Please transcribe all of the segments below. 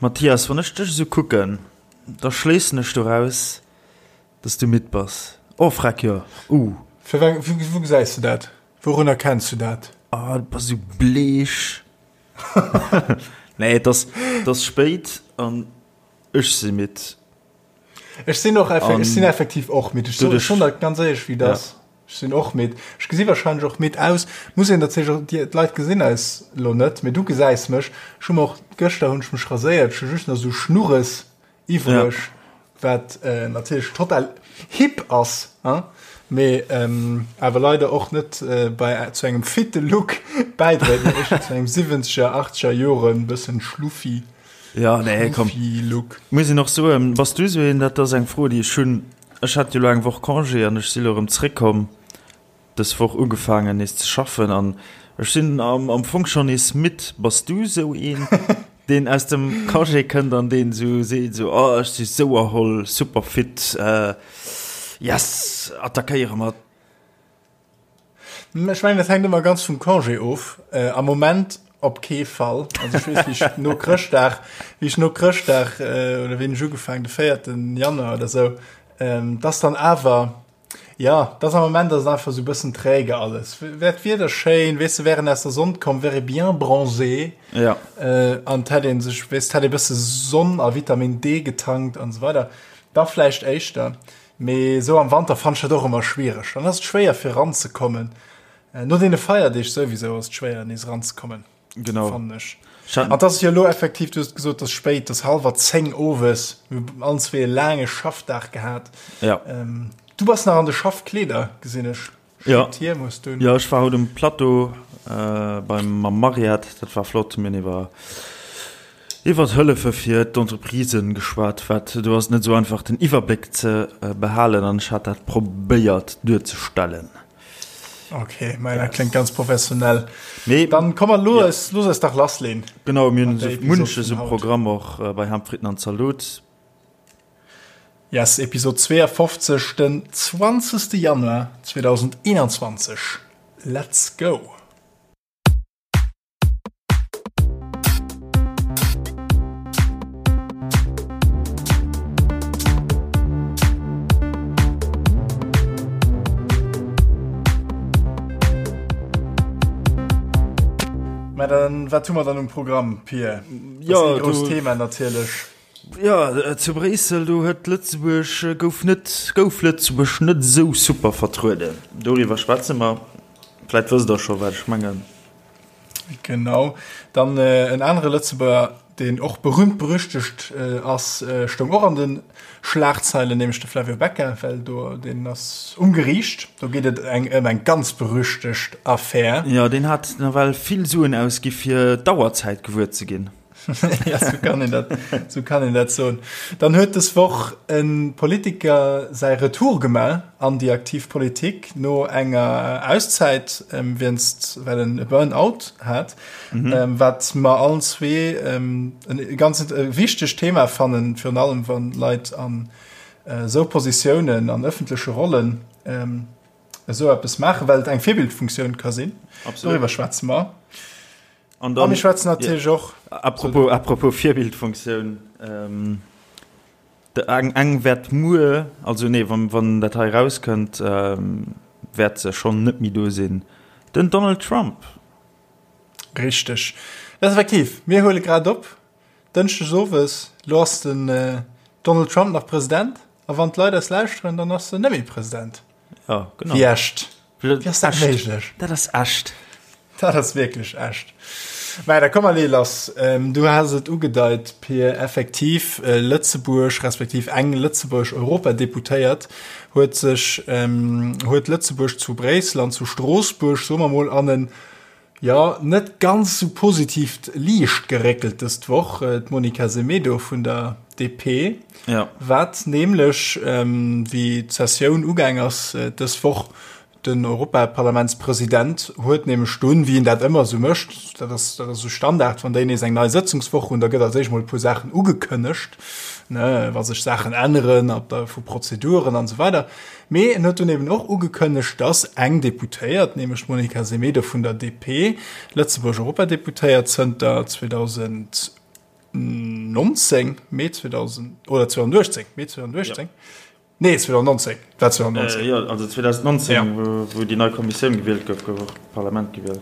Mathias, wann ech dech esou kucken, da schléissen ech doraus, dass du midd bass. Oh freck, jo, uh. Firwat, wou gesäis de dat? Wourun erkenns du dat? Ah, du bass esou bleech. Nee, et ass, et ass spéit an ech si midd. Ech sinn och, ech sinn effektiv och midd. Ech soen schonn dat ganz éierlech, wéi et ass. Ech sinn och midd. Ech gesi wahrscheinlech och midd aus. Muss een natierlech och, déi d'Leit gesinn eis elo net, mee du gesäis mech. Ech hu mer och, gëschter hunn ech mech raséiert, ech hu just nach esou Schnurres iwwreg, wat natierlech total hip ass, hein, mee awer leider och net bei zu engem fitte Look bäidréit, mee éischter zu engem siwwenzeger, achtzeger Joren bëssen schluffi, Ja, nee, komm. schluffi Look. Muss een och soen, bass du esou een, dat ass eng Fro, déi ech hunn, Ech hat jo elo eng Woch Congé an ech si lo erëm zréckkomm, dës Woch ugefaangen nees ze schaffen an ech sinn am Fong schonn nees midd. Bass du esou een, deen aus dem Congé kënnt an deen esou seet, esou, oh ech si sou erholl, super fit, yes, attackéiere mer? Ech mengen, dat hänkt ëmmer ganz vum Congé of. Am Moment op kee Fall. Also ech weess, wéi ech no Chrëschtdag, wéi ech no Chrëschtdag oder wéi hunn ech ugefaangen, de 4. Januar oder sou, dass dann awer, ja, dass am Moment ass et einfach sou e bëssen träge alles. Wär d'Wieder schéin, weess de, wär en aus der Sonn komm, wär ee bien bronzé. Ja. An et hätt ee sech, weess, et hätt ee bësse Sonn a Vitamin D getankt an esou weider, da vläicht éischter. Mee esou am Wanter fannen ech dat och ëmmer schwiereg. Dann ass et schwéier fir eranzekommen. No deene Feierdeeg souwisou ass et schwéier nees eranzekommen. Genau. Fannen ech. An et ass jo elo effektiv, du hues et gesot, et ass spéit, et ass hallwer 10 owes. Mir hu allen zwee e laange Schaffdag gehat. Ja. Du bass nach an de Schaffkleeder, gesinn ech. Ja. Hier muss du. Ja, ech war haut um Plateau äh, beim mam Mariette, dat war flott. Mir hunn iwwer iwwer Hëllefe fir d'Entreprisen geschwat, wat do ass net esou einfach den Iwwerbléck ze äh, behalen an ech hat dat probéiert duerzestellen. Okay, mä dat kléngt ganz professionell. Mee dann komm mer lo ja. los eis dach lassleen. Genau, mir hunn esou munches um Programm och äh, bei Ham, Fritten an Zalot. Yes, Episod 52, den 20. Januar 2021. Let's go! Mä dann, wat hu mer dann um Programm, Pir? Ja, dat ass e grousst Thema natierlech. Jo, zu Bréissel, do huet Lëtzebuerg, gouf net, gouf Lëtzebuerg net esou super vertrueden. Doriwwer schwätze mer. Vläit wësst Der scho, wat ech mengen. Genau. Dann en anere Lëtzebuerger, deen och berühmt berüchtegt ass, stoung och an de Schlagzeilen, nämlech de Flavio Becca, well do, deen ass um Geriicht. Do geet et eng ëm eng ganz berüchtegt Affär. Jo, deen hat nawell vill Suen ausgi fir d'Auerzäit gewuer ze ginn. Ja, sou kann een dat, sou kann een dat soen. Dann huet dës Woch e Politiker säi Retour gemaach an déi aktiv Politik no enger Auszäit, wéinst, well en e Burn-out hat, wat mer allen zwee e ganz wichtegt Thema fannen, virun allem wann Leit an esou Positiounen, an ëffentleche Rollen esou eppes maachen, well et eng Virbildfunktioun ka sinn. Doriwwer schwätze mer. An dann, A mir schwätzen natierlech och. Apropos, apropos Virbildfunktioun, ähm, de, eng, eng wäert muer, also nee, wann, wann dat hei erauskënnt, ähm, wäert se schonn net méi do sinn, den Donald Trump. Richteg. Dat ass effektiv, mir huele grad op, dënschdes owes, lo ass den Donald Trump nach President, a wann d'Leit eis lauschteren, dann ass en net méi President. Ja, genau. Wéi echt. Wéi ass dat méiglech? Dat ass echt. Dat ass wierklech echt. Mä da komm mer lee lass. Du has et ugedeit, Pir, effektiv, Lëtzebuerg, respektiv eng lëtzebuergesch Europadeputéiert huet sech, huet Lëtzebuerg zu Bréissel an zu Stroossbuerg, soe mer mol, an en Jo, net ganz sou positiivt Liicht geréckelt dëst Woch, d'Monica Semedo vun der DP, wat nämlech, wéi d'Sessioun ugaang ass dës Woch, den Europaparlamentspresident huet nämlech dunn, wéi en dat ëmmer esou mécht, dat ass dat ass esou Standard, wann déi nees eng nei Sëtzungswoch hunn, da gëtt als éischt mol e puer Saachen ugekënnegt, ne, wa sech Saachen änneren, op der vu Prozeduren an esou weider. Mee en huet dunn eben och ugekënnegt, datt eng Deputéiert, nämlech d'Monica Semedo vun der DP, Lëtzebuerg Europadeputéiert zënter 2019. 2019, Mee 2000, oder 2018, Mee 2018. Ja. Nee, 2019, war 2019. Äh, jo, also 2019, ja. wou, wou déi nei Kommissioun gewielt gouf, gouf och d'Parlament gewielt.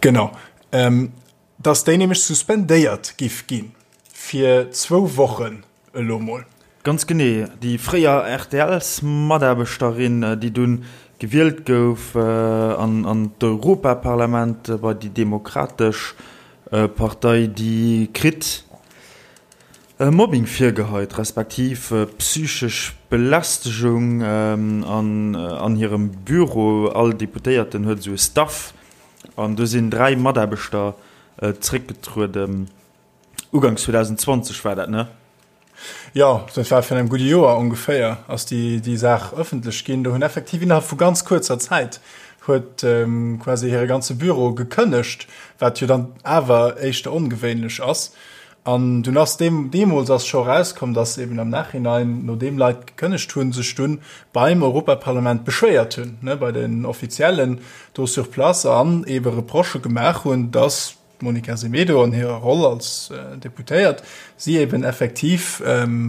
Genau. Ähm, dass déi nämlech suspendéiert giff ginn fir zwou Wochen elo mol. Ganz genee, déi fréier RTLs-Mataarbechterin, déi dunn gewielt gouf an an d'Europaparlament bei déi Demokratesch Partei, déi kritt Mobbing virgeheit, respektiv psychesch Belästegung an an hirem Büro. All Deputéierten huet esou e Staff an do sinn 3 Mataarbechter zréckgetrueden. Uganks 2020 war dat, ne? Jo, dat war virun engem gudde Joer ongeféier, ass déi, déi Saach ëffentlech ginn. Do hunn effektiv innerhalb vu ganz kuerzer Zäit huet quasi hire ganze Büro gekënnegt, wat jo dann awer éischter ongewéinlech ass. An dunn ass deem, deemools ass scho erauskomm, datt eben am Nachhinein, nodeem Leit gekënnegt hunn, sech dunn beim Europaparlament beschwéiert hunn, ne, bei den Offiziellen do sur place an ebe Reprochë gemaach hunn, datt D'Monica Semedo an hirer Roll als Deputéiert si eben effektiv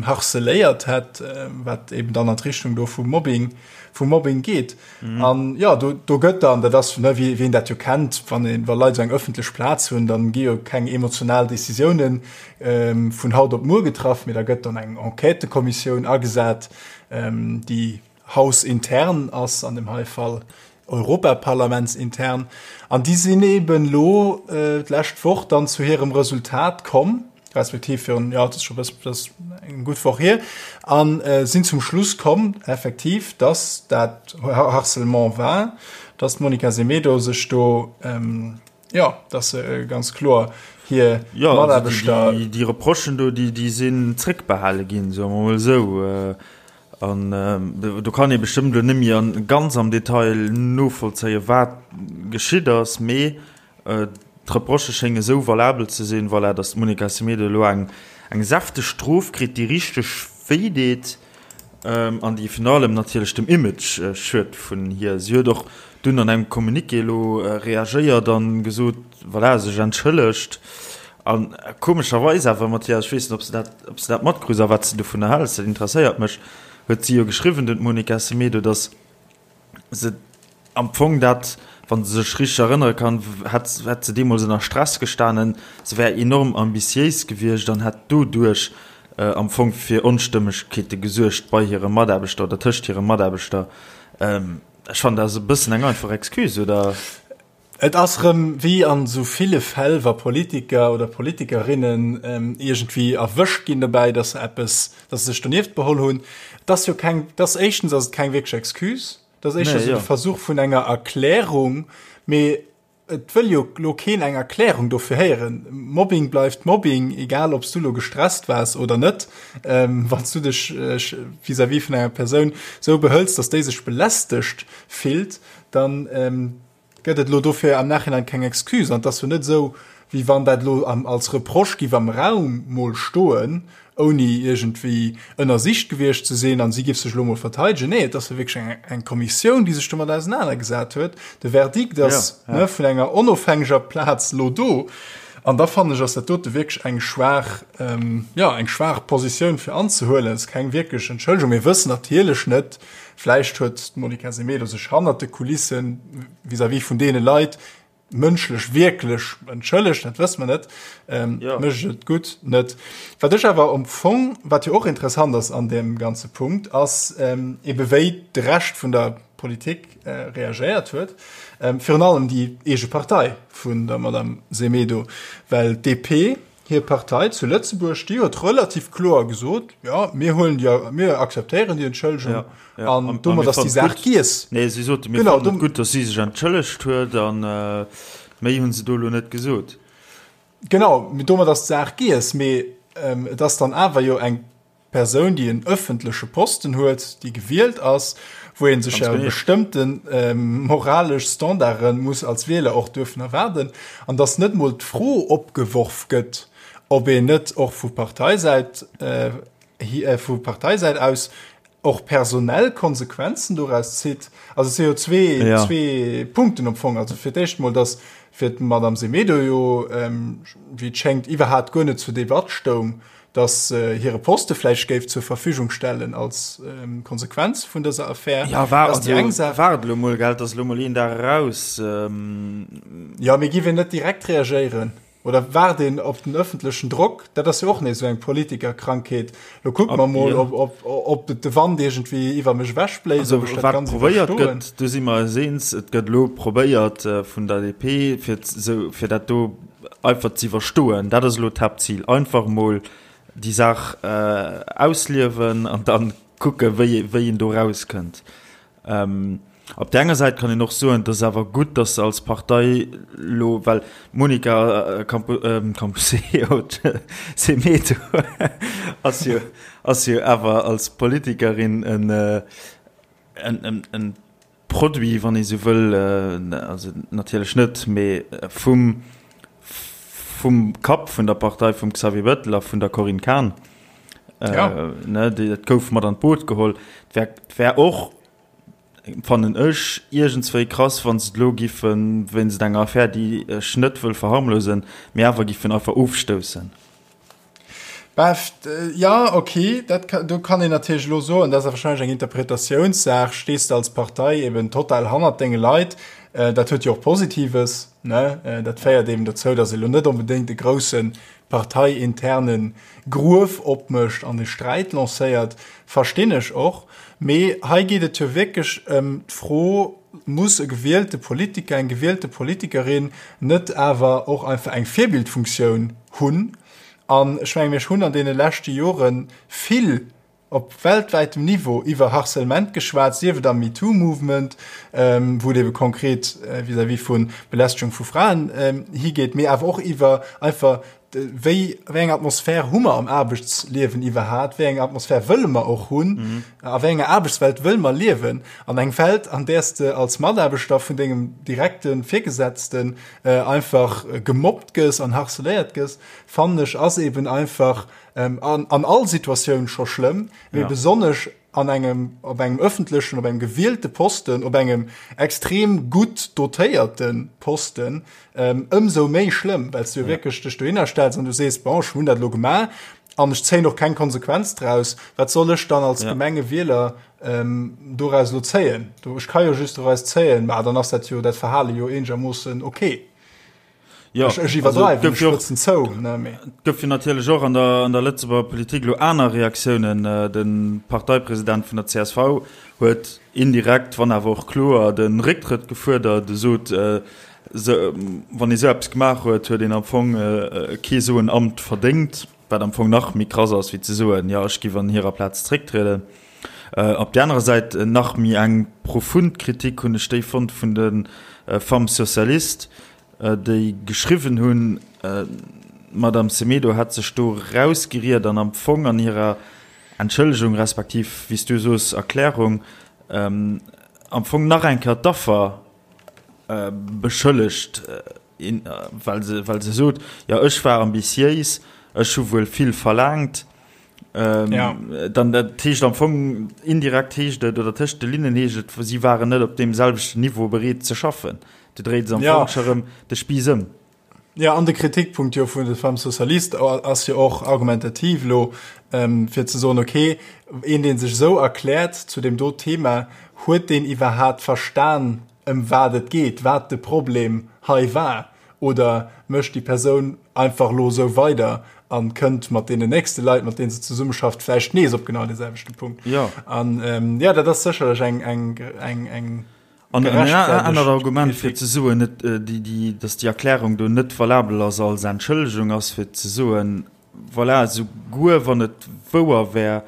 harceléiert hätt, wat eben dann an d'Richtung do vum Mobbing, vum Mobbing geet. An jo, do, do gëtt dann, dat ass, ne, wéi een dat jo kennt, wann een, wa Leit esou eng ëffentlech Plaz hunn, dann gi jo keng emotional Decisiounen vun haut op muer getraff, mee da gëtt dann eng Enquêtëkommissioun agesat, déi hausintern ass, an dem hei Fall europaparlamentsintern, an déi sinn eben elo d'lescht Woch dann zu hirem Resultat komm, respektiv virun, jo, dat ass scho e bëssen, dat ass eng gutt Woch hier, a sinn zum Schluss komm, effektiv, dass dat Harcèlement war, dass d'Monica Semedo sech do, jo, dass se ganz kloer hir Mataarbechter. Jo, déi Reprochen do, déi sinn zréckbehale ginn, soe mer emol esou. An do kann ee bestëmmt elo net méi ganz am Detail novollzéien, wat geschitt ass, mee d'Reprochë schénge esou valabel ze sinn, voilà, datt d'Monica Semedo elo eng säfteg Strof kritt, déi richteg wéi deet an déi virun allem natierlech dem Image schued vun hir. Si huet och dunn an engem Communiqué elo reagéiert a gesot, voilà, sech entschëllegt. A komescherweis awer, Mathias, ech weess net, ob s de dat, ob s de dat matkruss a wat s de dovunner häls, dat interesséiert mech, huet si jo geschriwwen, dunn d'Monica Semedo, datt se am Fong dat, wa se sech richteg erënnere kann, hätt, hätt se deemools ënner Stress gestanen, se wär enorm ambitiéis gewiescht an hätt doduerch am Fong fir Onstëmmegkeete gesuergt bei hire Mataarbechter oder tëscht hire Mataarbechter. Ech fannen, dat ass e bëssen eng einfach Excuse, oder? Et ass rëm wéi an esou ville Fäll, wa Politiker oder Politikerinnen iergendwéi erwëscht ginn dobäi, dass se eppes, dass se sech donieft beholl hunn. Et ass jo keng, et ass éischtens ass et keng wierklech Excuse, et ass éischter esou de Versuch vun enger Erklärung, mee et wëll jo elo keen eng Erklärung dofir héieren. Mobbing bleift Mobbing, egal ob s du elo gestresst waars oder net. Wann s du dech vis-à-vis vun enger Persoun esou behëls, dass déi sech belästegt fillt, dann gëtt et elo dofir am Nachhinein keng Excuse. An et ass jo net esou, wéi wann dat elo als Reproche giff am Raum mol stoen, ouni iergendwéi ënnersicht gewiescht ze sinn, an si giff sech elo mol verteidegen. Nee, et ass jo wierklech eng, eng Kommissioun, déi sech domat ausenanergesat huet. De Verdikt ass ja, ja. vun enger onofhängeger Plaz elo do. An da fannen ech, ass dat dote wierklech eng schwaach, ähm, ja, eng schwaach Positioun fir anzehuelen. Et ass keng wierklech Entschëllegung. Mir wëssen natierlech net, Vläicht huet d'Monica Semedo sech hannert de Kulissen vis-à-vis vun deene Leit mënschlech wierklech entschëllegt, dat wësse mer net. Ähm, ja. Mécht et gutt net. Wat ech awer am Fong, wat jo och interessant ass an deem ganze Punkt, ass ähm, ebe wéi de Rescht vun der Politik äh, reagéiert huet. Ähm, virun allem déi eege Partei vun der Madame Semedo, well d'DP, Hir Partei zu Lëtzebuerg, déi huet relativ kloer gesot, jo, mir huelen déi, mir akzeptéieren déi Entschëllegung ja, ja. an domat ass déi Saach giess. Nee, si sote mir fannen et gutt, datt si sech entschëllegt huet an äh, méi hunn se do elo net gesot. Genau, domat ass d'Saach giess, mee ähm, et ass dann awer jo eng Persoun, déi en ëffentleche Posten huet, déi gewielt ass, wou ee sech ja bestëmmte moralesch Standarde muss als Wieler och duerfen erwaarden, an datt net mol d'Fro opgeworf gëtt, ob een net och vu Parteisäit, vu Parteisäit aus. och personell Konsequenzen doraus zitt. Also et si jo zwee, ja. zwee Punkten am Fong. Also fir d'éischt mol, dass fir d'Madame Semedo jo, ähm, wéi et schéngt, iwwerhaapt guer net zur Debatt stoung, dass äh, hire Poste vläicht géif zur Verfügung stellen als ähm, Konsequenz vun dëser Affär. Ja, war, also, eng Saach. Waart elo mol, gell, dass elo mol een Dag eraus. Ähm ja, mee giff een net direkt reagéieren? Oder waart een op den ëffentlechen Drock? Dat ass jo och nees esou eng Politikerkrankheet. Lo kucke mer mol, ob, ob, ob de Wand iergendwéi iwwer mech ewechbléist, Also, ob ech dat wat Ganzt probéiert iwwerstoen. gëtt, do si mer eis eens, et gëtt elo probéiert vun der DP, fir esou, fir dat do einfach ze iwwerstoen. Dat ass elo d'Haaptzil, einfach emol déi Saach ausliewen an dann kucke wéi, wéi een do erauskënnt. Op där enger Säit kann een och soen, et ass awer gutt, datt se als Partei elo, well d'Monica Camposeo Semedo ass jo, ass jo awer als Politikerin en, en, en Produit, wann ee sou wëll, also natierlech net, mee vum, vum Kapp vun der Partei, vum Xavier Bettel a vun der Corinne Cahen. Ja. Ne, déi, dat gouf mat an d'Boot geholl. Et wär, et wär och, fannen ech, iergendswéi krass, wa se et elo giffen, wéinst enger Affär, déi ech net wëll verharmlosen, mee awer giffen einfach ofstoussen. Bah, ja, okay, dat ka, do kann een natierlech elo soen, dat ass wahrscheinlech eng Interpretatiounssaach, stees de als Partei eben total hannert denge Leit, dat huet jo och Positives, ne, dat féiert eben dozou, datt ee lo net onbedéngt e grousse parteiinterne Gruef opmécht an e Sträit lancéiert, verstinn ech och. Mee hei geet et jo wierklech ëm d'Fro, Muss e gewielte Politiker, eng gewielte Politikerin net awer och einfach eng Virbildfunktioun hunn? An ech menge mir hunn an deene leschte Jore vill op weltwäitem Niveau iwwer Harcèlement geschwat, sief et am MeToo-Movement, wou et ebe konkret vis-à-vis vu Belästegung vu Fraen higeet, mee awer och iwwer einfach wéi, wéi eng Atmosphär hu mer am Aarbechtsliewen iwwerhat, wéi eng Atmosphär wëlle mer och hunn, a wéi enger Aarbechtswelt wëlle mer liewen. An eng Welt, an där s de als Mataarbechter vun dengem direkte Virgesetzten einfach gemobbt gëss an harceléiert gëss, fannen ech, ass eben einfach an all Situatioun scho schlëmm, mee besonnesch an engem, op engem öffentlechen, op engem gewielte Posten, op engem extrem gutt dotéierte Posten, ëmsou méi schlëmm, well s du jo wierklech dech dohinner stells an du sees, bon, ech hunn dat elo gemaach an ech zéien och keng Konsequenz draus. Wat soll ech dann als Gemengewieler doraus elo zéien? Ech ka jo just doraus zéien, ma dann ass dat jo, dat Verhale jo eenegermoossen okay. Jo, ech, ech iwwerdreiwen, ech spëtzen zou, ne, mee. Et gouf jo natierlech och an der, an der Lëtzebuerger Politik elo aner Reaktiounen. De Parteipresident vun der csv huet indirekt, wann awer och kloer, de Récktrëtt gefuerdert. E sot, wann ee sou eppes gemaach huet, huet een am Fong kee sou en Amt verdéngt, wat am Fong nach méi krass ass, wéi ze soen, jo, ech giff an hirer Plaz zrécktrieden. Op där anerer Säit nach méi eng profund Kritik hunn ech déi fonnt vun de Femmes socialistes, déi geschriwwen hunn, d'Madame Semedo hätt sech do rausgeriet an am Fong an hirer Entschëllegung respektiv, wéi s du soos, Erklärung, am Fong nach eng Kéier d'Affer beschëllegt, well se, well se sot, jo ech war ambitiéis, ech hu wuel vill verlaangt. Ja. Dann dat heescht am Fong indirekt heescht et oder tëscht de Linnen heescht et, si waren net op deem selwechten Niveau bereet ze schaffen. Du dréit se am ja. Fong scho rëm de Spiiss ëm. Ja, an de Kritikpunkt jo vun de Femmes Socialistes ass jo och argumentativ lo, ähm, fir ze soen, okay, een deen sech esou erkläert zu deem do Thema, huet deen iwwerhaat verstan, ëm wat et geet, wat de Problem hei war, oder mécht déi Persoun einfach elo esou weider a kënnt mat deenen nächste Leit, mat deenen se zesummeschafft, vläicht nees op genau dee selwechte Punkt. Jo. An jo, dat ass sécherlech eng, eng, eng, eng An en anert Argument, fir ze soen, net déi, déi, datt déi Erklärung do net valabel ass als Entschëllegung, ass fir ze soen, voilà, souguer wann et wouer wär,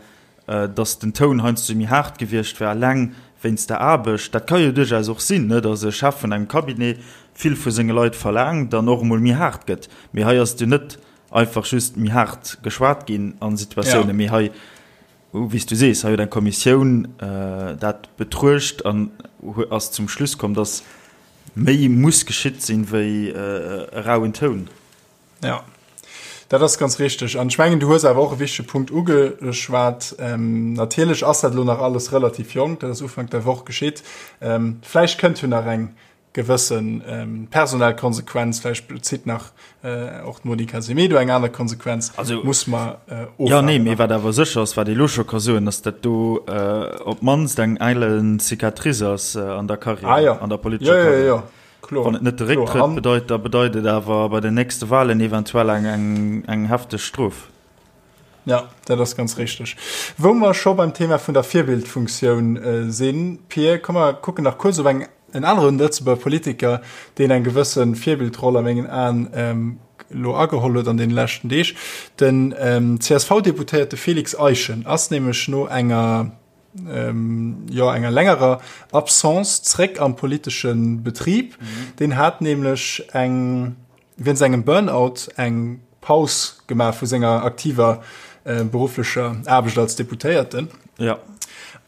datt den Toun heiansdo méi haart gewiescht wär, eleng wéinst der Aarbecht, dat ka jo duerchaus och sinn, ne, datt e Chef vun engem Cabinet vill vu senge Leit verlaangt an och emol méi haart gëtt. Mee hei ass et jo net einfach just méi haart geschwat ginn a Situatiounen, mee hei, wéi s du sees, hei huet eng Kommissioun dat betruecht an ass zum Schluss komm, datt méi muss geschitt sinn, wéi e rauen Toun. Ja. Dat ass ganz richteg. An ech mengen, du hues awer och e wichtege Punkt ugeschwat. Natierlech ass dat elo nach alles relativ jonk, dat ass Ufank der Woch geschitt. Vläicht kënnt jo nach eng gewësse personell Konsequenz, vläicht zitt nach och d'Monica Semedo eng aner Konsequenz. Also, muss mer ofwaarden. Jo, nee, mee wat awer sécher ass, wat ee elo scho ka soen, ass, datt do op d'mannst eng eilen Cicatrice ass an der Karriär, ah, ja. an der politescher Karriär. Jo, jo, jo. Kloer. Wann et net de Récktrëtt bedeit, da bedeit et awer bei den nächste Wahlen eventuell eng, eng, eng hefteg Strof. Ja, dat ass ganz richteg. Wou mer scho beim Thema vun der Virbildfunktioun sinn, Pir, komm mer kucken nach kuerz op eng, en aneren Lëtzebuerger Politiker, deen eng gewësse Virbildroll a mengen Aen elo ageholl huet an deene leschten Deeg. Den CSV-Deputéierte Félix Eischen ass nämlech no enger, jo, enger längerer Absence zréck am politesche Betrib. Deen hat nämlech eng, wéinst engem Burnout eng Paus gemaach vu senger aktiver berufflecher Aarbecht als Deputéierten. Ja.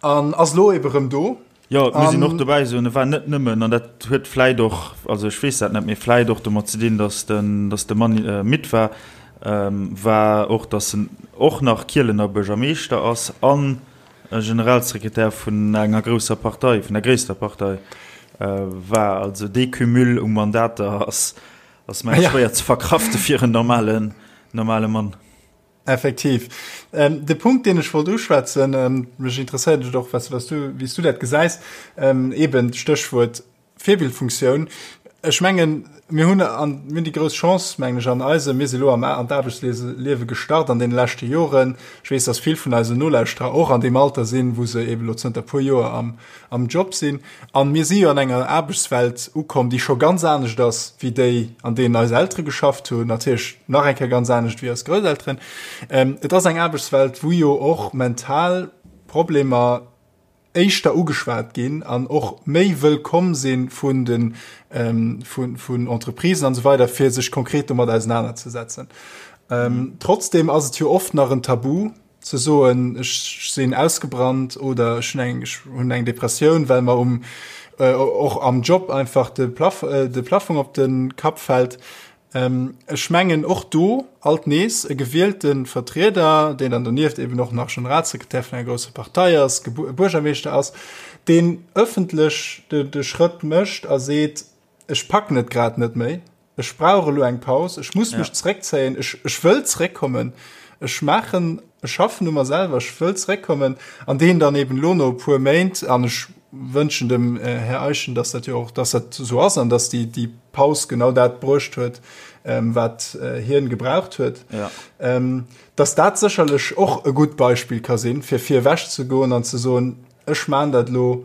An ass elo ebe rëm do. Jo, et muss een och dobäi soen, e war net nëmmen, an dat huet vläit och, also ech weess dat net, mee vläit och domat ze dinn, datt den, datt de Mann midd war, war och, datt en och nach Kielener Buergermeeschter ass an Generalsekretär vun enger grousser Partei, vun der gréisster Partei war. Also dee Cumul u Mandater ass, ass mengen ech schwéier ze verkrafte fir en normalen, normale Mann. Effektiv. De Punkt, deen ech wollt uschwätzen, mech interesséiert et och, was, was du, wéi s du dat gesäis, eben d'Stéchwuert Virbildfunktioun. Ech mengen, mir hunn an, mir hunn déi grouss Chance, mengen ech, an eisem, mir si lo am an d'Aarbechtsliewe gestart an deene leschte Joren. Ech weess, dass vill vun eisen Nolauschterer och an deem Alter sinn, wou se eben elo zënter e puer Joer am, am Job sinn. An mir si jo an enger Aarbechtswelt ukomm, déi scho ganz anescht ass wéi déi, an deenen eis Eltere geschafft hunn, natierlech nach eng Kéier ganz anescht wéi eis Grousselteren. Et ass eng Aarbechtswelt, wou jo och mental Problemer éischter ugeschwat ginn an och méi wëllkomm si vun de vun Entreprisen an esou weider, fir sech konkret domat ausenanerzesetzen. Trotzdem ass et jo oft nach en Tabu ze soen, ech sinn ausgebrannt oder ech hunn eng ech hunn eng Depressioun, well mer um och am Job einfach de Plaf de Plafong op de Kapp fält. Ech mengen och do alt nees e gewielte Vertrieder, deen dann donieft eben och nach Generalsekretär vun enger grousser Partei ass, Buergermeeschter ass, deen ëffentlech de Schrëtt mécht a seet, ech packen et grad net méi, ech brauch elo eng Paus, ech muss mech zeréckzéien, ech wëll zeréckkommen, ech maachen, ech schaffen u mer selwer, ech wëll zeréckkommen, an deen dann eben elo no e puer Méint, an ech wënschen dem Här Eischen, dass dat jo och, dass dat esou ass an dass déi, déi Paus genau dat bruecht huet, wat hien gebraucht huet, ja. dass dat sécherlech och e gutt Beispill ka sinn, fir vir ewech ze goen an ze soen, ech maan dat elo,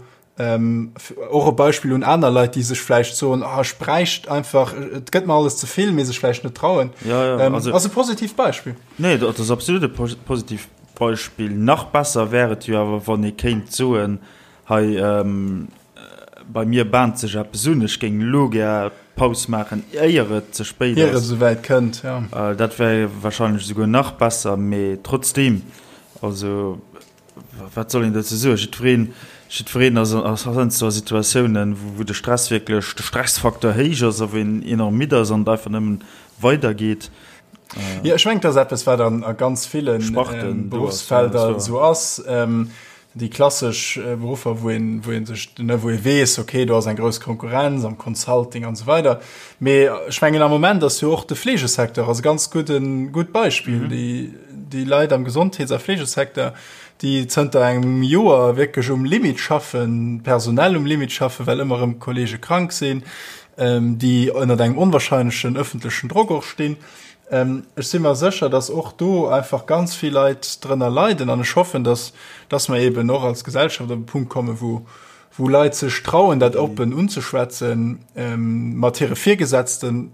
och e Beispill un aner Leit, déi sech vläicht soen, ah, ech bräicht einfach, et gëtt mer alles ze vill, mee sech vläicht net trauen. Ja, ja, also, ass e positivt Beispill. Nee, dat ass absolut e positivt Beispill. Nach besser wär et jo awer, wann ee kéint soen, Hei, bei mir bahnt sech eppes un, ech géing elo gär Paus maachen, éier et ze spéit ass. Ier et esouwäit kënnt, jo. Dat wär warscheinlech esouguer nach besser, mee trotzdeem, also wat soll een dozou soen? Jiddwereen, jiddwereen ass heiansdo a Situatiounen, wou de Stress wierklech, de Stressfaktor héich ass a wou een enorm midd ass an et einfach nëmmen weidergeet. Jo, ech mengen, et ass eppes, wat a ganz ville Beruffsfelder esou ass. Déi klassesch Beruffer, wou een, wou een sech, ne, wou ee weess, okay, do ass eng grouss Konkurrenz am Consulting an esou weider. Mee ech mengen, am Moment ass jo och de Fleegesecteur ass e ganz gudden, gutt Beispill. Mhm. Déi, déi Leit am Gesondheets a Fleegesecteur, déi zënter engem Joer wierklech um Limit schaffen, personell um Limit schaffen, well ëmmer erëm Kollege krank sinn, déi ënnert engem onwahrscheinlechen ëffentlechen Drock och stinn. Ech si mer sécher, dass och do einfach ganz vill Leit drënner leiden an ech hoffen, dass, dass mer eben och als Gesellschaft op e Punkt kommen, wou, wou Leit sech trauen, dat oppen unzeschwätzen, mat hire Virgesetzten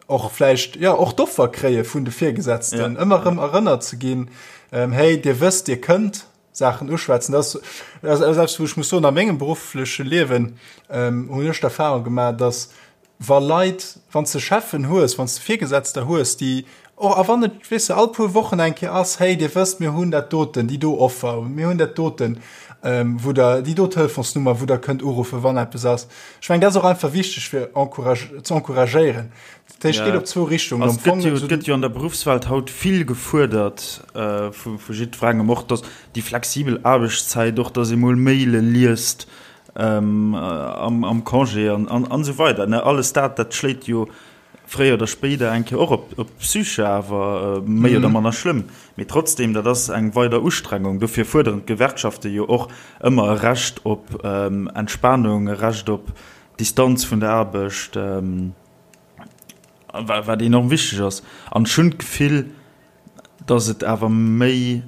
och vläicht, jo, och d'Offer kréie vun de Virgesetzten, ëmmer erëm erënnert ze ginn, Hey, Dir wësst, Dir kënnt Saachen uschwätzen. Dat ass eppes, wou ech muss soen, a mengem beruffleche Liewen hunn ech d'Erfahrung gemaach, dass wa Leit, wann s de Cheffen hues, wann s de Virgesetzter hues, déi. Och a wann et, weess de, all puer Wochen eng Kéier ass, hey, Dir wësst, mir hunn dat doten, déi do Offer, mir hunn dat doten, wou Der, déi do Telefonsnummer, wou Der kënnt uruffen, wann eppes ass. Ech mengen, dat ass och einfach wichteg, fir ze encouragéieren. Dat heescht, et geet op zwou Richtungen. Am Fong. Et gëtt jo an der Beruffswelt haut vill gefuerdert vu jiddwerengem, och dass déi flexibel Aarbechtszäit, och dass ee mol Maile liest am Congé an esou weider. Alles dat, dat schléit jo fréier oder spéider eng Kéier och op d'Psyche, awer méi oder manner schlëmm. Mee trotzdem, dat ass eng weider Ustrengung. Dofir fuerderen d'Gewerkschafte jo och ëmmer e Recht op Entspanung, e Recht op Distanz vun der Aarbecht, wat enorm wichteg ass. An ech hunn d'Gefill, datt et awer méi,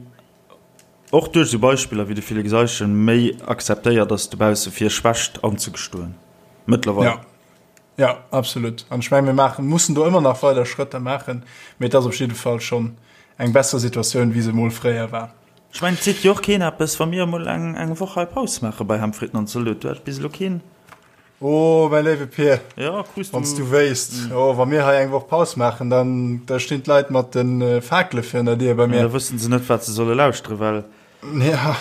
och duerch esou Beispiller wéi de Félix Eischen, méi akzeptéiert ass dobausse fir Schwächt anzegestoen mëttlerweil. Jo, absolut. An ech mengen, mir maachen, mussen do ëmmer nach weider Schrëtter maachen, mee et ass op jidde Fall schonn eng besser Situatioun, wéi se emol fréier war. Ech mengen, et seet jo och keen eppes, wa mir emol eng, eng Woch hei Paus maache bei Ham, Fritten an Zalot. Do hat bis elo keen. Oh, mäi léiwe Pir, Ja, krus du. wann s du wéisst, oh, wa mir hei eng Woch Paus maachen, dann, da stinn d'Leit mat de Fakele virun der Dier bei mir. Ja, da wëssen se net, wat se solle lauschteren, well. Ja.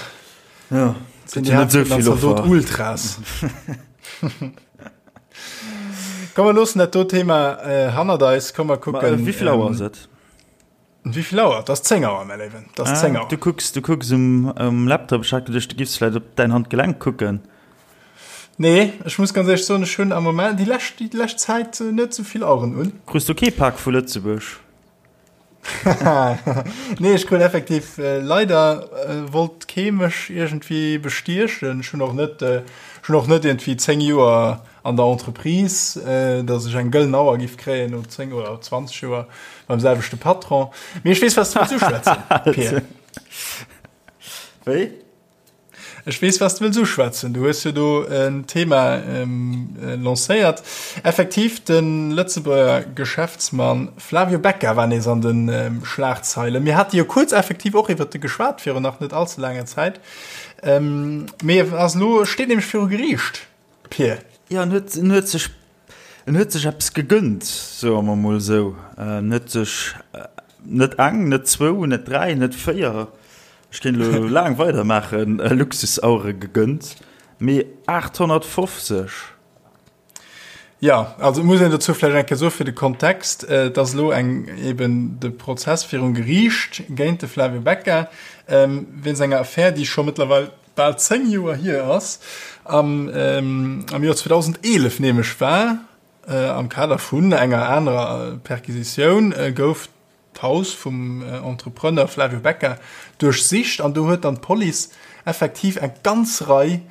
Ja, sinn déi net esou vill Offer. Ultras. Komm, mer loossen dat do Thema äh, hannert eis. Komm, mer kucken. Ma, äh, wéi vill Auer ass et? Wéi vill Auer? Dat ass 10 Auer, mäi Léiwen. Dat ass 10 Auer. Du kucks, du kucks um, um Laptop. Ech hat geduecht, du giffs vläicht op däin Handgelenk kucken. Nee, ech muss ganz éierlech soen, ech hunn am Moment déi lescht, déi lescht Zäit net esou vill Aueren un. Krus du kee Pak vu Lëtzebuerg? Nee, ech krut effektiv äh, leider äh, wollt kee mech iergendwéi bestiechen. Ech hunn och net, äh, ech hunn och net iergendwéi 10 Joer an der Entreprise, äh, datt ech eng gëllen Auer giff kréien no 10 oder 20 Joer beim selwechte Patron. Mee ech weess, wat s du wëlls uschwätzen, Pir. Wéi? Ech weess, wat s de wëlls uschwätzen. Du hues jo do en Thema lancéiert. Effektiv, de Lëtzebuerger Geschäftsmann Flavio Becca war nees an de Schlagzeilen. Mir hate jo kuerz effektiv och iwwert e geschwat virun nach net allze laanger Zäit. Mee e ass elo, steet nämlech viru Geriicht. Pir. Jo, en huet, en huet sech, en huet sech eppes gegënnt, soe mer mol esou. En huet sech net eng, net zwou, net dräi, net véier, ech kéint elo laang weidermaachen, Luxusauere gegënnt, mee 850. Jo, also et muss een dozou vläicht eng Kéier soe fir de Kontext, et ass elo eng, eben de Prozess virum Geriicht géint de Flavio Becca wéinst enger Affär, déi scho mëttlerweil bal 10 Joer hier ass, am am Joer 2011 nämlech war, am Kader vun enger anerer Perquisitioun, gouf d'Haus vum Entrepreneur Flavio Becca duerchsicht an do huet dann d'Police effektiv eng ganz Rei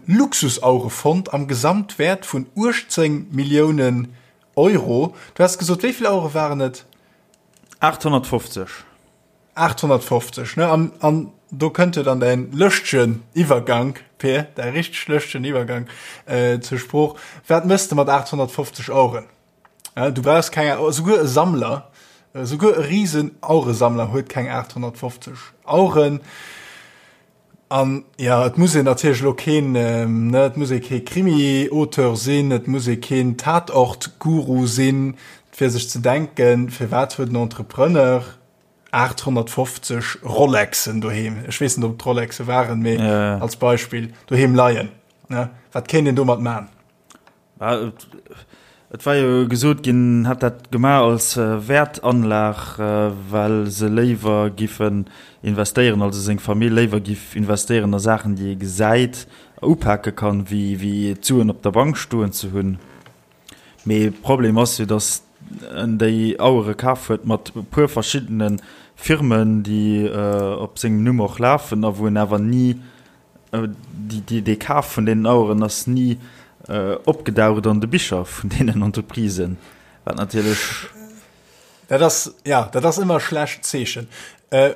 Luxusauere fonnt am Gesamtwäert vun 18 Milliounen Euro. Du has gesot, wéi vill Auere waren et? 850. 850, ne? An, an do kënnt jo dann däin lëschtegen Iwwergank, Peer, däi richteg lëschtegen Iwwergank äh, zur Sprooch. Wat mëss de mat 850 Aueren? Ja, du brauchst keng, souguer e Sammler, souguer e riesen Aueresammler huet keng 850 Aueren. An ja, et muss een natierlech elo keen, ne, et muss ee kee Krimi-Auteur sinn, et muss ee keen Tatort-Guru sinn, fir sech ze denken, firwat huet en Entrepreneur 850 Rolexen doheem, ech weess net, ob et Rolexe waren, mee als Beispill, doheem leien, ne? Wat kéint een domat man? Et war jo gesot ginn, en hätt dat gemaach als Wäertanlag, well se léiwer giffen investéieren, also seng Famill léiwer giff investéieren a Saachen, déi ee gesäit a upake kann, wéi d'Suen op der Bank stoen ze hunn. Mee Problem ass jo, datt en déi Auere kaf huet mat e puer verschiddene Firmen, déi op sengem Numm och lafen a wou en awer ni Dee Kaf vun deenen Aueren ass ni opgedaucht an de Bicher vun deenen Entreprisen, wat natierlech. Dat ass, ja, dat ass ëmmer e schlecht Zeechen.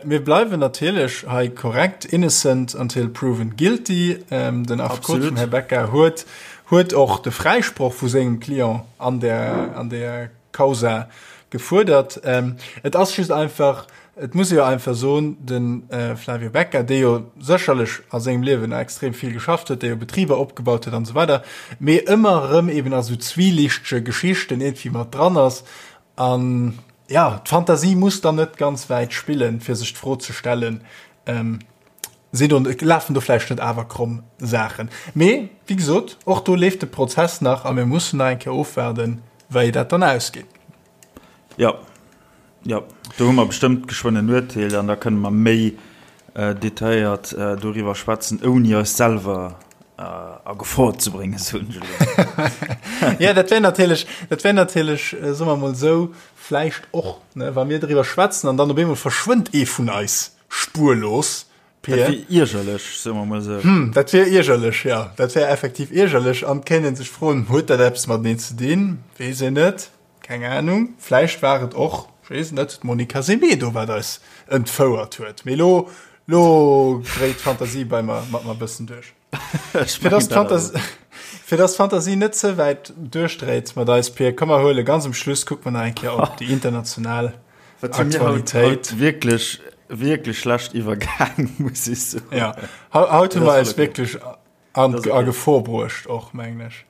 Mir bleiwen natierlech hei korrekt, innocent until proven guilty. Den Affekot vum Här Becca huet, huet och de Fräisproch vu sengem Client an där, an där Causa gefuerdert. Et ass just einfach, et muss ee jo einfach soen, de Flavio Becca, dee jo sécherlech a sengem Liewen extrem vill geschafft huet, dee jo Betriber opgebaut huet an esou weider, mee ëmmer erëm eben a sou zwielichtege Geschichten iergendwéi mat dran ass. An, Ja, d'Fantasie muss dann net ganz wäit spillen, fir sech d'Fro ze stellen, ähm, sinn do, lafen do vläicht net awer kromm Saachen. Mee, wéi gesot, och do leeft de Prozess nach a mir mussen nach eng Kéier ofwaarden, wéi dat dann ausgeet. Jo, jo, do hu mer bestëmmt geschwënn en Urteel an da kënne mer méi detailléiert doriwwer schwätzen, ouni eis selwer a Gefor ze bréngen, soen ech elo. Jo, dat wär natierlech, dat wär natierlech, soe mer emol esou, vläicht och, ne, wa mir driwwer schwätzen an dann op eemol verschwënnt ee vun eis spurlos, Dat wier iergerlech, soe mer emol esou. Hm, dat wier iergerlech, jo. Dat wär effektiv iergerlech an et kéint ee sech froen, Huet dat eppes mateneen ze dinn? Weess een net. Keng Ahnung, vläicht war et och, ech weess et net, d'Monica Semedo, wat eis entfouert huet. Mee lo, lo dréit d'Fantasie bei mer, mat mer e bëssen duerch. Fir dass d'Fantasie, fir dass d'Fantasie net ze wäit duerchdréit mat eis, Pir, komm mer huele ganz um Schluss, kucke mer nach eng Kéier op déi international Wat si mir haut, haut wierklech, wierklech schlecht iwwergaang, muss ech soen. Ja, haut hu mer eis wierklech An a Gefor bruecht och, mengen ech.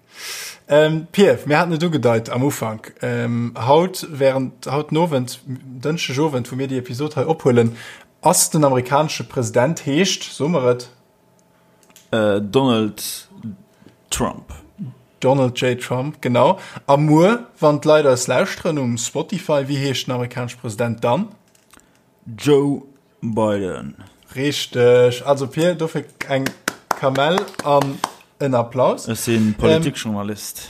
Ähm, Pir, mir haten et ugedeit am Ufank. Ähm, haut, während haut den Owend, Dënschdeg Owend, wou mir déi Episod hei ophuelen, ass den amerikanesche President, heescht, soe mer et? Äh, Donald Trump. Donald J. Trump, genau. A muer, wann d'Leit eis lauschteren um Spotify, wéi heescht den amerikanesche President dann? Joe Biden. Richteg. Also Pir, dofir eng Kamell an en Applaus. Ech si Politikjournalist.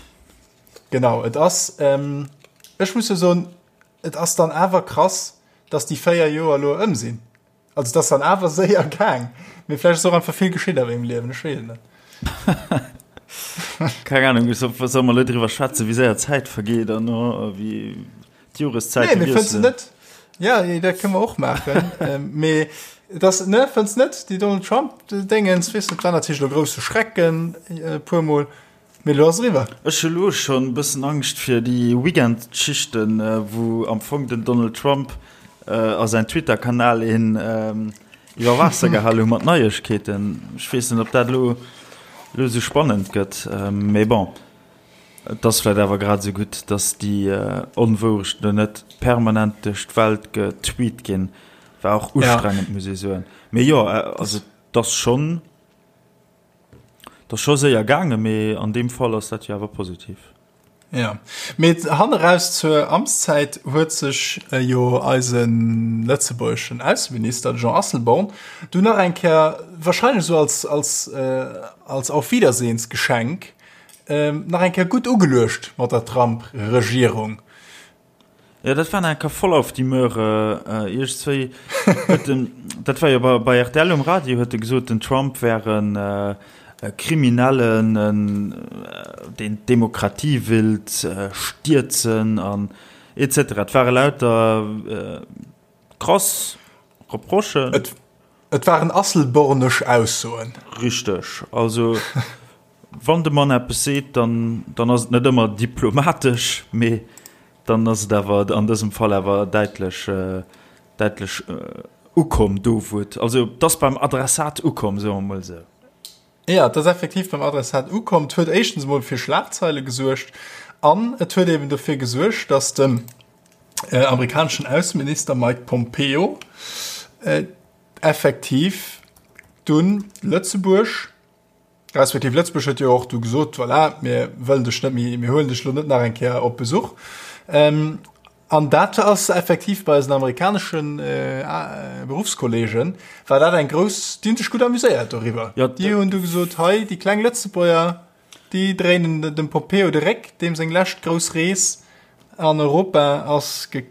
Genau, et ass, ech muss jo soen, et ass dann awer krass, dass déi 4 Joer elo ëm sinn. Also et ass dann awer séier gaang. Mee vläicht ass och einfach vill geschitt a mengem Liewen, ech weess et net. Keng Ahnung, solle mer elo driwwer schwätzen, wéi séier d'Zäit vergeet an wéi D'Joreszäite nee, wiesselen. Net? Ja, dat kënne mer och maachen. ähm, mee das ne fënns net déi Donald Trump Dingens wis war natierlech lo grousse Schrecken äh, puer mol mee lo ass eriwwer. Ech hu lo schonn e bëssen Angscht fir déi Weekendschichten, äh, wou am Fong den Donald Trump äh, a säin Twitter-Kanal een ähm, iwwer Waasser gehal hu mat Neiegkeeten. Ech weess net, ob dat lo lo sou spannend gëtt, ähm, mee bon. Et ass vläit awer grad esou gutt, datt déi Onwourechten do net permanent duerch d'Welt getweet ginn. War och ustrengend, muss ee soen. Mee jo, also et ass schonn, et ass scho séier gaangen, mee an deem Fall ass dat jo awer positiv. Jo, mee hanneraus zur Amtszäit huet sech jo eise lëtzebuergeschen Ausseminister, de Jean Asselborn, dunn nach eng Kéier, wahrscheinlech esou als, als, als Auf-Wiedersehens-Geschenk, Nach eng Kéier gutt ugeluecht mat der Trump-Regierung. Jo, dat war nach eng Kéier voll auf die Möhre. Iergendzwéi huet en, dat war jo bei, bei rtl um Radio, huet e gesot, den Trump wär en Kriminellen, en, deen d'Demokratie willt stierzen an et cetera. Et ware lauter krass Reprochen. Et, et waren asselbornesch Aussoen. Richteg. Also. Wann de Mann eppes seet, dann, dann ass et net ëmmer diplomatesch, mee dann ass et awer an dësem Fall awer däitlech, däitlech ukomm do, wou et, also et ass beim Adressat ukomm, soe mer emol esou. Jo, et ass effektiv beim Adressat ukomm. Et huet éischtens emol fir Schlagzeile gesuergt an et huet eben dofir gesuergt, datt den amerikaneschen Ausseminister Mike Pompeo effektiv dunn Lëtzebuerg, Respektiv Lëtzebuerg huet jo och du gesot, voilà, mir wëllen dech net méi, mir huelen dech lo net nach eng Kéier op Besuch. Ähm, an dat ass effektiv bei eisen amerikaneschen äh, Beruffskollegen, war dat eng grouss, déi hunn sech gutt amuséiert doriwwer. Ja, déi hunn du gesot, hei, déi kleng Lëtzebuerger, déi dréinen dem Pompeo de Réck, deem seng lescht grouss Rees an Europa ass ge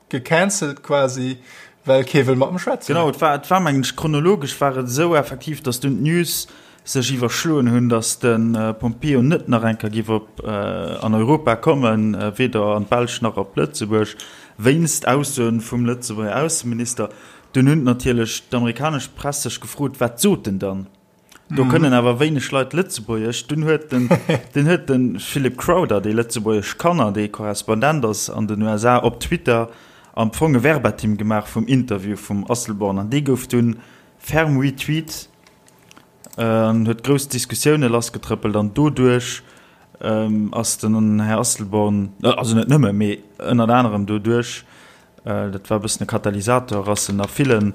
Gecancelt quasi, well kee wëll mat em schwätzen. Genau, et war, et war mengen ech, chronologesch war et esou effektiv, datt dunn d'News sech iwwerschloen hunn, datt de Pompeo net nach eng Kéier géif op an Europa kommen, weder an d'Belsch nach op Lëtzebuerg, wéinst Aussoen vum Lëtzebuerger Ausseminister. Dunn hunn natierlech d'amerikanesch Press sech gefrot, wat sot en dann? Do kënnen awer wéineg Leit Lëtzebuergesch. Dunn huet den, dunn huet de Philip Crowther, dee Lëtzebuergesch kann an dee Korrespondent ass an den USA, op Twitter am Fong e Verbatim gemaach vum Interview vum Asselborn an dee gouf dunn ferm retweet an huet grouss Diskussioune lassgetrëppelt an doduerch ass den Här Asselborn, also net nëmme, mee ënnert anerem doduerch. dat war e bëssen e Katalysator, ass en a villen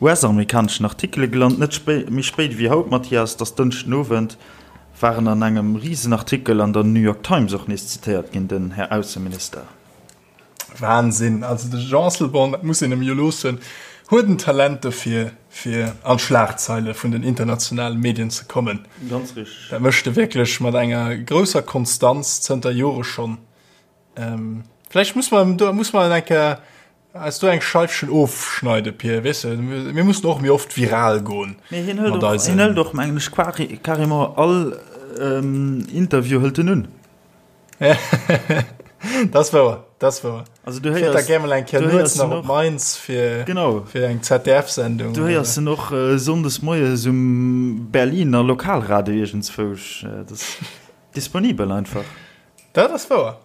US-amerikaneschen Artikele gelant. Net méi spéit ewéi haut, Mathias, et ass Dënschden Owend, war en an engem Risenartikel an der New York Times och nees zitéiert ginn, den Här Ausseminister. Wahnsinn! Also de Jean Asselborn, dat muss een em jo loossen, huet en Talent dofir, fir an d'Schlagzeile vun den internationale Medien ze kommen. Ganz richteg. Dat mécht e wierklech mat enger grousser Konstanz zënter Jore schonn. Vläicht muss mer do muss mer eng Kéier eis do eng Scheifchen ofschneide, Pir, weess de, mir mussen och méi oft viral goen. Mee hien hëlt och, hien hëlt och, mengen ech, carrément all Interview hëlt en un. Dat ass wouer, dat ass wouer. Also du héiers, da gär mol eng Kéier nuets nach op Mainz fir, genau. fir eng ZDF-Sendung. Du héiers en och äh, sonndes moies um Berliner Lokalradio iergendzwousch. Äh, dat ass disponibel einfach. Dat ass wouer.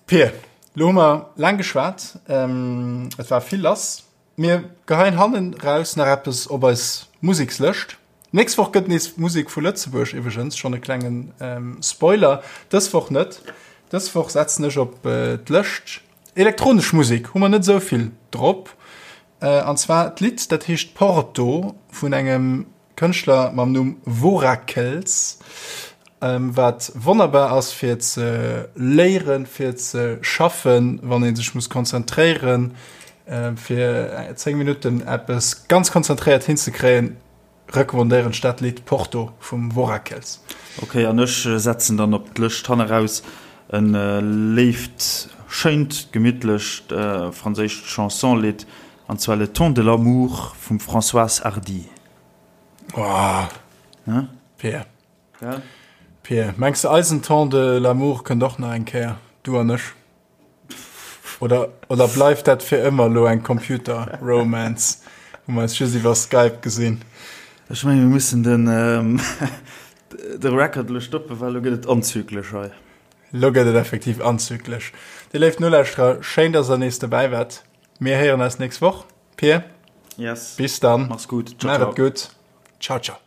Pir, lo hu mer laang geschwat. Ähm, et war vill lass. Mir geheien hannen raus nach eppes op eis Musekslëscht. Nächst Woch gëtt nees Musek vu Lëtzebuerg, iwwregens schonn e klengen Spoiler, dës Woch net. Dës Woch setzen ech op d'Lëscht elektronesch Musek, hu mer net esou vill drop. An zwar d'Lidd dat heescht Porto vun engem Kënschtler mam Numm Vorakels, wat wonnerbar ass fir ze léieren, fir ze schaffen, wann ee sech muss konzentréieren, fir 10 Minutten eppes ganz konzentréiert hinzekréien, recommandéieren ech dat Lidd Porto vum Vorakels. Ok, an ech setzen dann op d'Lëscht hanneraus en léift, schéint, gemittlecht franséischt Chanson-Lidd, an zwar Le temps de l'amour vum Françoise Hardy. Oh, Pir. Ja? Pir, mengs de eisen Temps de l'amour kënnt och nach eng Kéier, du an ech? Oder, oder bleift dat fir ëmmer lo eng Computer-Romance, wou mer eis just iwwer Skype gesinn? Ech mengen, mir mussen den, ähm, de Record elo stoppen, well elo gëtt et anzüglech hei. Lo gëtt et effektiv anzüglech. Dir léif Nolauschterer, schéin, dass der nees dobäi waart. Mir héieren eis nächst Woch. Pir, Yes. bis dann. Mach's gut. Ciao, ciao. Maach et gutt. Ciao, ciao.